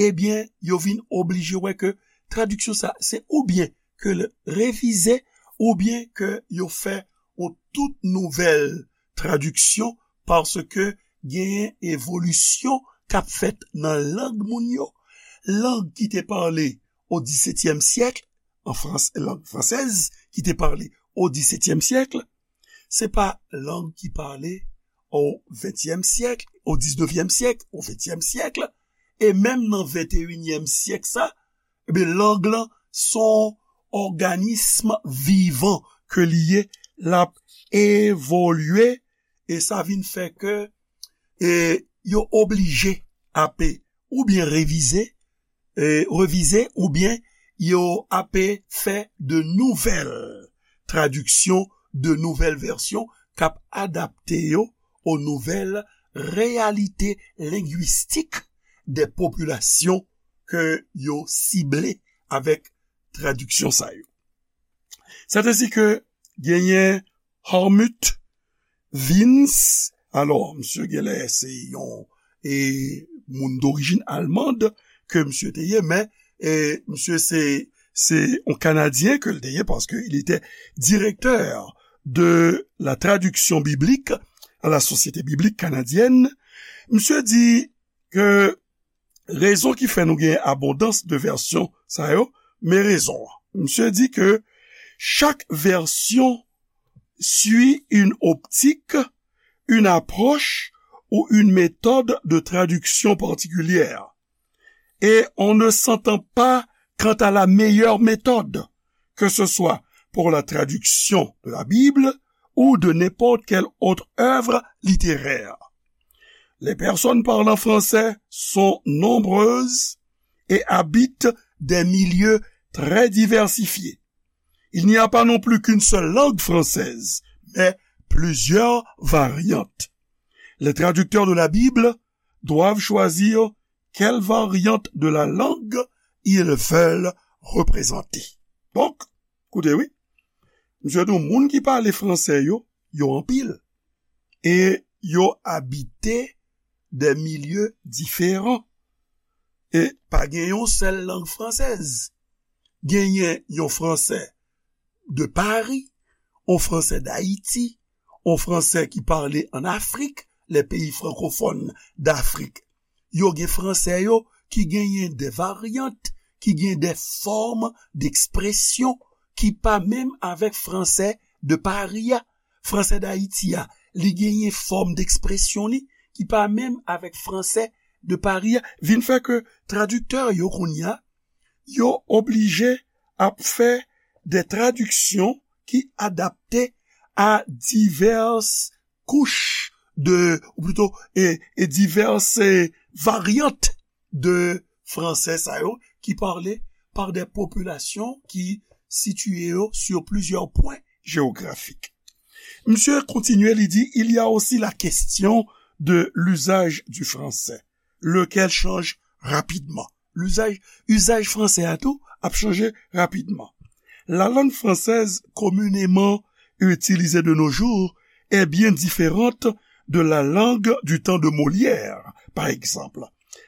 ebyen, yo vin oblije wè ke tradiksyon sa, se oubyen ke l revize, oubyen ke yo fè yon tout nouvèl tradiksyon, paske genyen evolisyon k ap fèt nan lang moun yo. Lang ki te pale o disetyèm syèk, an frans-, lang fransèz ki te pale o disetyèm syèk, se pa lang ki pale o ventyèm syèk, o diznevyèm syèk, o ventyèm syèk, e menm nan venteyinyèm syèk sa, ebyen, lang lan se yon òganism vivan ke li ye, l ap evolye, e sa vin fè ke, e, yo oblije ape oubyen revize, e, revize, oubyen yo ape fè de nouvèl tradiksyon, de nouvèl vèsyon k ap adapte yo o nouvèl reyalite lengwistik de popilasyon ke yo sible avèk tradiksyon sa yo. Sèt ensi ke genyen Hartmut Vinz. Alò, misye genlè se yon, e, moun dorijin almand ke misye te ye, men, e, misye se, se yon Kanadyen ke l te ye, paske il était directeur de la traduction biblique à la Société biblique canadienne. Misye di ke rezon ki fè nou gen abondans de vèsyon sa yo, men rezon an. Misye di ke chaque version suit une optique, une approche ou une méthode de traduction particulière. Et on ne s'entend pas quant à la meilleure méthode, que ce soit pour la traduction de la Bible ou de n'importe quelle autre œuvre littéraire. Les personnes parlant français sont nombreuses et habitent des milieux très diversifiés. Il n'y a pas non plus qu'une seule langue française, mais plusieurs variantes. Les traducteurs de la Bible doivent choisir quelle variante de la langue ils veulent représenter. Donk, koute wi, misye di w moun ki pale fransè yo, yo anpil. E yo abite de milye diferan. E pa gen yon sèl lang fransèz. Genyen yon fransè de Paris, yon fransè d'Haïti, yon fransè ki pale an Afrik, les pays francophones d'Afrique. Yo gen fransè yo ki genyen de varyant, ki gen de fòm d'ekspresyon ki pa menm avèk fransè de Paris a. Fransè d'Haïti a, li genyen fòm d'ekspresyon li ki pa menm avèk fransè de Paris a. Vin fè ke tradiktè yo kounye a, yo oblije ap fè de tradiksyon ki adapte a divès kouch de, ou plito, e, e divès, e, varyant de fransè sa yo ki pale pa de popilasyon ki sitiye yo sur plusieurs points géographiques. Misye kontinye, li di, il y a aussi la question de l'usage du français, lequel change rapidement. L'usage, usage fransè a tou ap chanje rapidman. La langue française communément utilisée de nos jours est bien différente de la langue du temps de Molière, par exemple.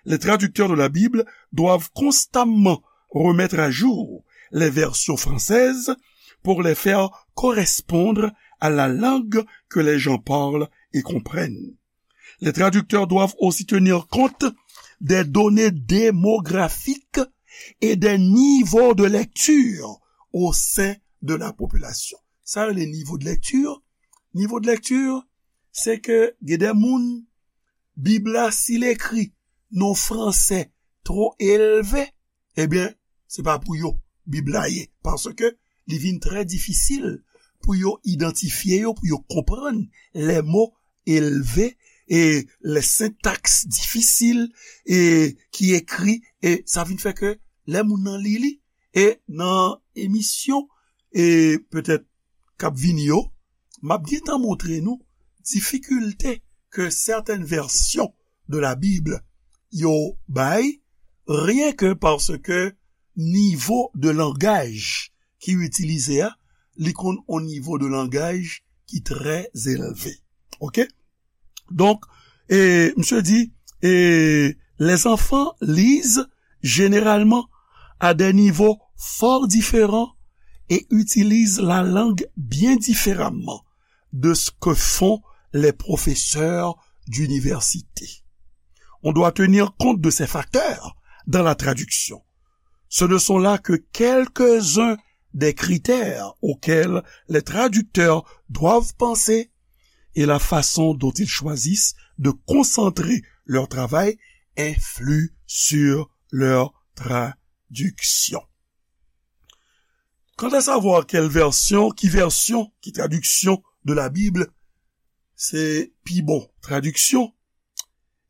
Les traducteurs de la Bible doivent constamment remettre à jour les versions françaises pour les faire correspondre à la langue que les gens parlent et comprennent. Les traducteurs doivent aussi tenir compte des données démographiques et des niveaux de lecture au sein de la population. Sa yo rele nivo de lèkti. Nivo de lèkti, se ke gen de moun, Bib la, si l ekri nan yon fransè twò elve, ebyen, se pa pou yo Bib la ye, paske li vin trè difisil pou yo idantifye yo, pou yo konprann les mots élevés e les syntaxes difficiles e ki ekri, e sa vin fè ke lè moun nan li li, e nan emisyon, e petèt k ap vini yo, m ap gentan montre nou difikilte ke sètèn vèsyon de la Bible yo bay, ryen ke paske nivo de langaj ki itilize a, li konn on nivo de langaj ki trè elve. Oke? Donk, e, misye di, e, les enfants lisent généralement à des niveaux fort différents et utilisent la langue bien différemment de ce que font les professeurs d'université. On doit tenir compte de ces facteurs dans la traduction. Ce ne sont là que quelques-uns des critères auxquels les traducteurs doivent penser et la façon dont ils choisissent de concentrer leur travail influe sur leur traduction. Quant à savoir quelle version, ki vèsyon, ki tradiksyon de la Bible, se pi bon tradiksyon,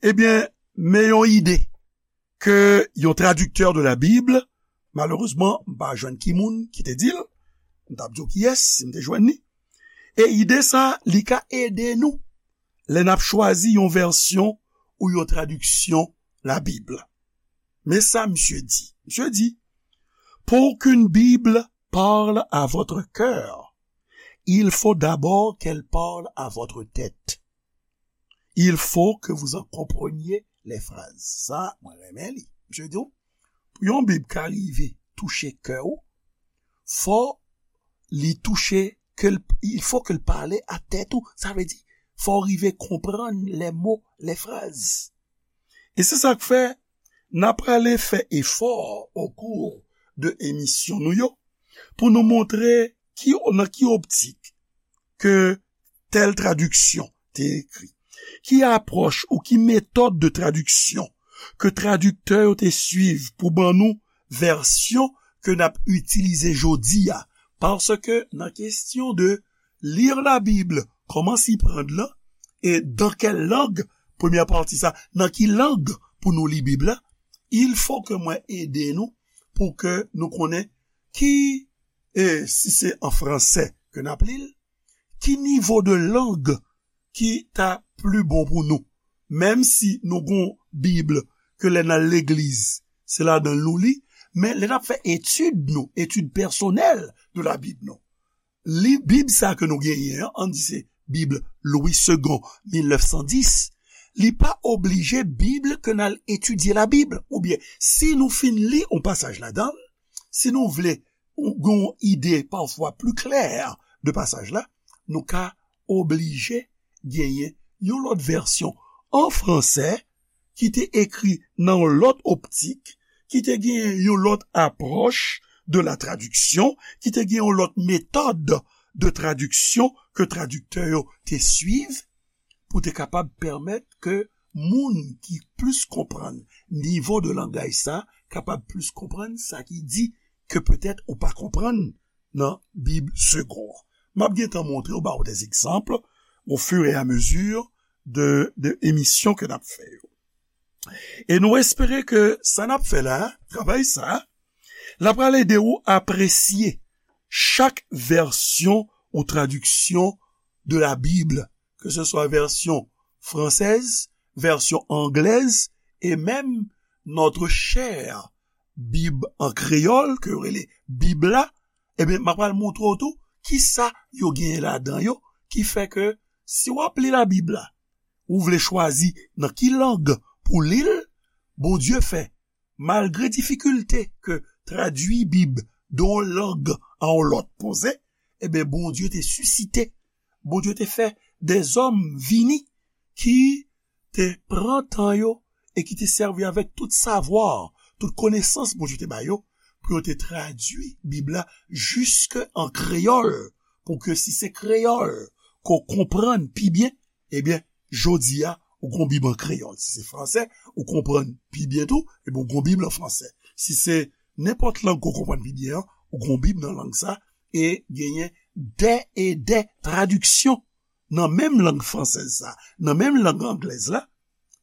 ebyen, men yon ide ke yon tradiktè de la Bible, malerezman, m pa jwenn ki moun ki te di l, m t ap di w kiyès, si m te jwenn li. E ide sa, li ka ede nou lè n ap chwazi yon vèsyon ou yon tradiksyon la Bible. Men sa misye di. Misye di, pour qu'une Bible parle à votre cœur, il faut d'abord qu'elle parle à votre tête. Il faut que vous en compreniez les phrases. Sa, mwen renmen li. Misye di w, pou yon Bib ka rive touche kè w, fò li touche, ke l, il faut que l parle à tête ou. Sa vle di, fò w rive konprann les mots, les phrases. E se sa k fè, n ap prale fè efò au cours de emisyon nou yo, pou nou montre ki, nan ki optik ke tèl tradiksyon te ekri, ki apwòch ou ki metòd de tradiksyon ke tradiktè yo te swiv pou ban nou vèsyon ke n ap itilize jodi a. Paske nan kesyon de lire la Bible, comment s'y prendre la, et dans quelle langue, premyè pati sa, nan ki lang pou nou li Bib la, il faut que mwen ede nou pou ke nou konnen ki, e si se an fransè ke n ap li l, ki nivo de lang ki ta pli bon pou nou. Menm si nou gon Bib ke lè n al legliz, se ladan l nou li, men lè n ap fè etid nou, etid pèsonèl de la Bib nou, li Bib sa ke nou genyen an, ann di se Bib Louis Segond, mil nèf san dis, li pa oblije Bib ke n al etidye la Bib. Oubyen, si nou fin li yon pasaj ladan l, si nou vle yon ide pafwa pli klè de pasaj la, nou ka oblije genyen yon lòt vèsyon an fransè ki te ekri nan yon lòt optik, ki te genyen yon lòt apwòch de la tradiksyon, ki te genyen yon lòt metòd de tradiksyon ke tradiktè yo te swiv, pou te kapab pèmèt ke moun ki plis konprann nivo de langaj sa, kapab plis konprann sa ki di ke petèt ou pa konprann nan Bib Segond an. M ap gentan montre w, ba w des exemples au fur et à mesure de, de emisyon ke n ap fè yo. E nou espere ke sa n ap fè la, travay sa, l ap pral ede w apresye chak vèsyon ou tradiksyon de la Bible, ke se swa vèsyon fransèz, vèsyon anglèz, e menm notre chère Bib an kreyòl, ke yo rele Bib la, ebyen, m ap pral montre w tou kisa yo genyen ladan yo, ki fè ke si w ap li la Bib la, ou vle chwazi nan ki lang pou li l, Bondye fè, malgre difikilte ke tradui Bib de yon lang a yon lòt poze, ebyen, Bondye te sisite, Bondye te fè dèzòm vini ki te pran tan yo e ki te sèvi avèk tout savwa, tout konesans Bondye te ba yo, pou yo te tradui Bib la jiske an kreyòl, pou ke si se kreyòl ke w konprann pi byen, ebyen, jodi a, ou gon Bib an kreyòl. Si se fransè, ou konprann pi byen tou, ebyen, ou gon Bib an fransè. Si se nenpòt lang ke w konprann pi byen an, ou gon Bib nan lang sa, e genyen dè e dè tradiksyon nan menm lang fransèz sa, nan menm lang anglèz la,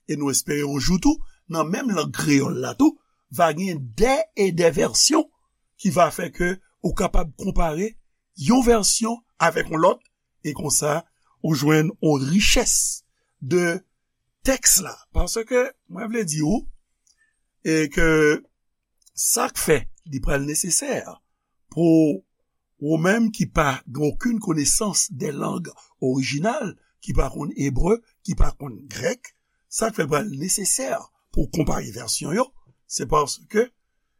e nou espere yon jou tou, nan menm lang kreyòl la tou, va gen dè e dè vèsyon ki va fè ke ou kapab konpare yon vèsyon avèk yon lòt, e konsa, ou jwenn yon richès de tèks la. Paske, mwen vle di w, e ke sa k fè li pral nesesè pou ou menm ki pa gen okenn konesans de lang orijinal, ki pa konn ebre, ki pa konn grèk, sa k fè l pral nesesè pou w konpare vèsyon yo, se paske,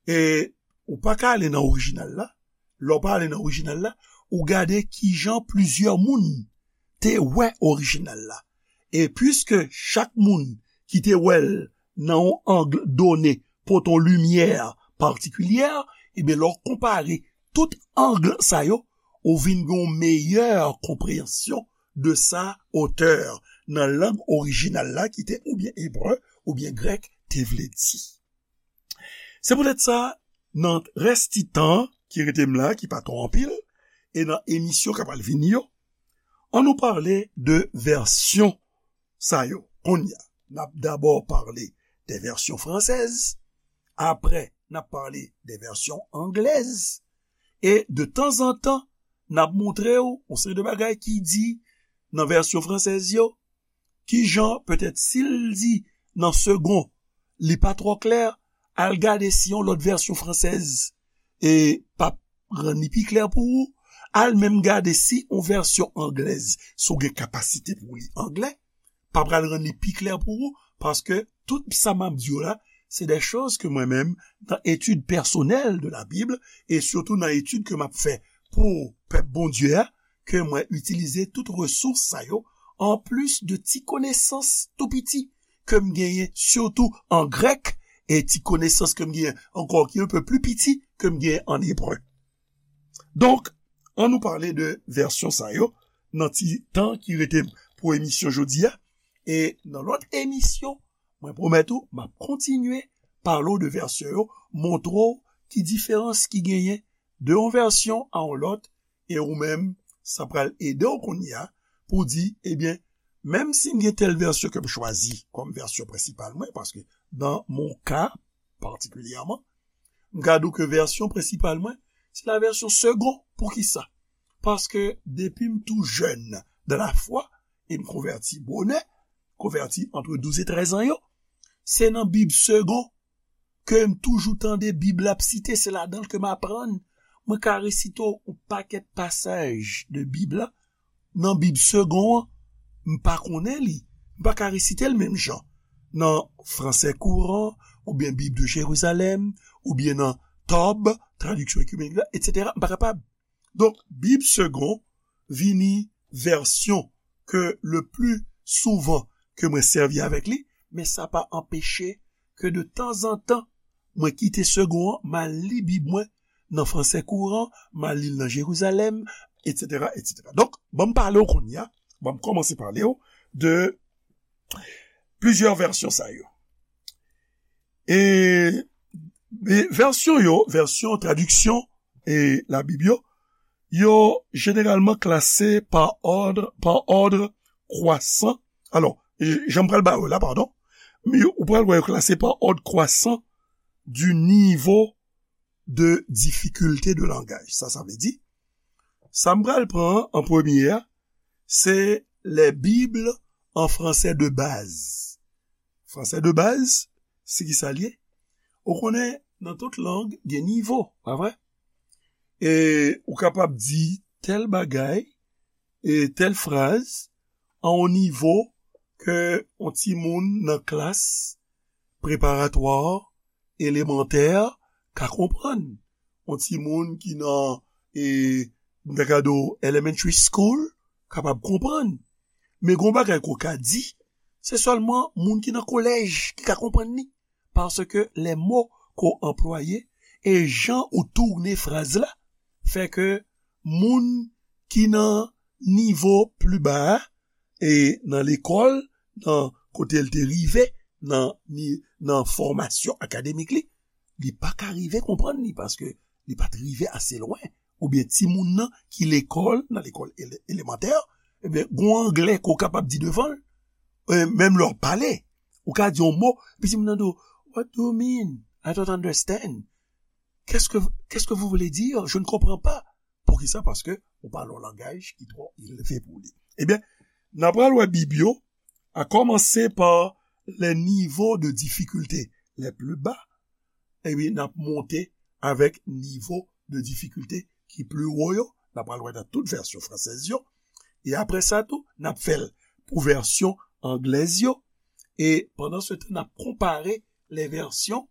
e, ou pa ka ale nan orijinal la. Lè w pa ale nan orijinal la, ou gade kijan plizyè moun te wè orijinal la. E piske chak moun ki te wè l nan yon ang done pote yon limyè patikilyè, ebyen, lè w konpare tout ang sa yo, ou vin gen yon meyè konpreyansyon de sa otè nan lang orijinal la ki te oubyen ebre oubyen grèk te vle di. Se poutèt sa, nan rès ti tan ki rete m la, ki pa twò anpil, e nan emisyon k ap al vini yo, ann nou pale de vèsyon sa yo. Kounye a, n ap dabò pale de vèsyon fransèz, apre, n ap pale de vèsyon anglèz, e de tanzantan, n ap montre w yon seri de bagay ki di nan vèsyon fransèz yo, kijan, petèt, si l di nan segon, li pa twò klè, al gade si yon lòt vèsyon fransèz e p ap rann li pi klè pou ou, al menm gade si yon vèsyon anglèz, si w gen kapasite pou w li anglè, pa pral rann li pi klè pou ou, paske tout sa m ap di w la, se de choz ke mwen menm, nan etid pèsonèl de la Bib, e sitou nan etid ke m ap fè pou pèp Bondye a, ke mwen itilize tout resous sa yo, anplis de ti konesans tou piti ke m genyen, sitou an grèk, e ti konesans ke m genyen ankò ki un peu plus piti ke m genyen an ebre. Donk, ann nou pale de vèsyon sa yo nan ti tan ki rete pou emisyon jodi a. E nan lòt emisyon, mwen pwomèt ou, m ap kontinye pale w de vèsyon yo, montre w ki diferans ki genyen de yon vèsyon a yon lòt, e ou menm, sa pral ede w kounye a pou w di, ebyen, menm si m gen tèl vèsyon ke m chwazi kòm vèsyon prensipal mwen, paske nan mon ka, patikilyèman, m ka di w ke vèsyon prensipal mwen, se la vèsyon segon. Poukisa? Paske depi m tou jèn dan lafwa, e m konvèti bonè, konvèti antre douz e trèz an yo, se nan Bib segon ke m toujou tande Bib la ap site, se ladan l ke m aprann. Mwen ka resite w yon pakèt pasaj de Bib la, nan Bib segon an, m pa konnen li. M pa ka resite l menm jan nan fransè kouran, oubyen Bib de Jerizalèm, oubyen nan Tòb, Traduction Ecuménique la, etsetera. M pa kapab. Donk, Bib segon vini vèsyon ke le pli souvan ke mwen sèvi avèk li, men sa pa anpeche ke de tanzantan, mwen kite segon an, m al li Bib mwen nan fransè kouran, m al li l nan Jerizalèm, etsetera, etsetera. Donk, ban m pale w kounye a, ban m kòmanse pale w de plizyè vèsyon sa yo. E, e vèsyon yo, vèsyon tradiksyon e Labib yo, yo jeneralman klase pa òd, pa òd kwasan. Alò, e, jan m pral ba yo la, padon, men yo, ou pral wè yo klase pa òd kwasan du niveau de difficulté de langage. Sa, sa vle di, sa m pral pran an premye a, se les Bibles en français de base. Fransè de baz, se ki sa l ye? Ou konnen, nan tout lang, gen nivo, pa vre? E ou kapab di tèl bagay, e tèl fraz, a yon nivo ke yon timoun nan klas preparatwa, elemantè, ka konprann. Yon timoun ki nan, e, m ta ka di w, elementary school, kapab konprann. Men gon bagay ke w ka di, se sèlman moun ki nan kolèj ki ka konprann li. Paske les mots ke w anplwaye e jan ou tounen fraz la fè ke moun ki nan nivo pli ba a, e nan lekòl, nan kote l te rive, nan, ni, nan fòmasyon akademik li, li pa ka rive konprann li, paske li pa t rive ase lwen. Oubyen timoun nan ki lekòl, nan lekòl ele-, elemantè, ebyen, gon anglè ke w kapab di devan l, e, menm lè w ap pale, ou ka di yon mo, epi timoun nan di w, "What do you mean? I don't understand. Qu'est-ce que, qu'est-ce que vous voulez dire? Je ne comprends pas." Poukisa? Paske ou pale yon langaj ki twò elve pou li. Ebyen, n a pral wè Bib yo, à commencer par les niveaux de difficulté les plus bas, epi n ap monte avèk nivo de difikilte ki pli wo yo, n ap pral wè nan tout vèsyon fransèz yo. E apre sa tou, n ap fè l pou vèsyon anglèz yo. E pandan se tan, n ap konpare lè vèsyon,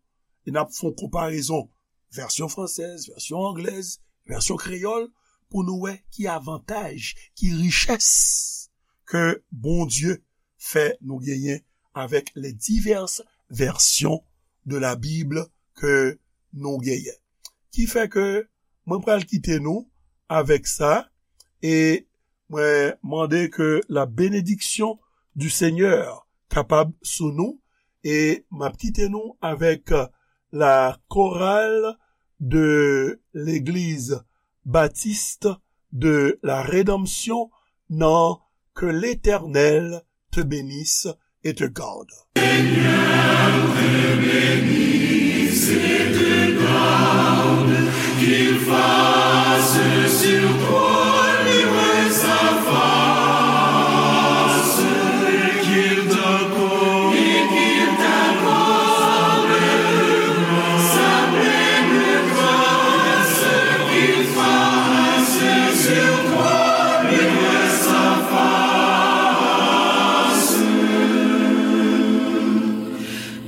e n ap fè yon konparezon vèsyon fransèz, vèsyon anglèz, vèsyon kreyòl, pou nou wè ki avantaj, ki richès ke Bondye fè nou genyen avèk les diverses versions de la Bible ke nou genyen. Ki fè ke mwen pral kite nou avèk sa, e mwen mande ke la bénédiction du Seigneur kapab sou nou, e m ap kite nou avèk la chorale de l'église baptiste de la Rédemption nan Que l'Éternel te bénisse et te garde.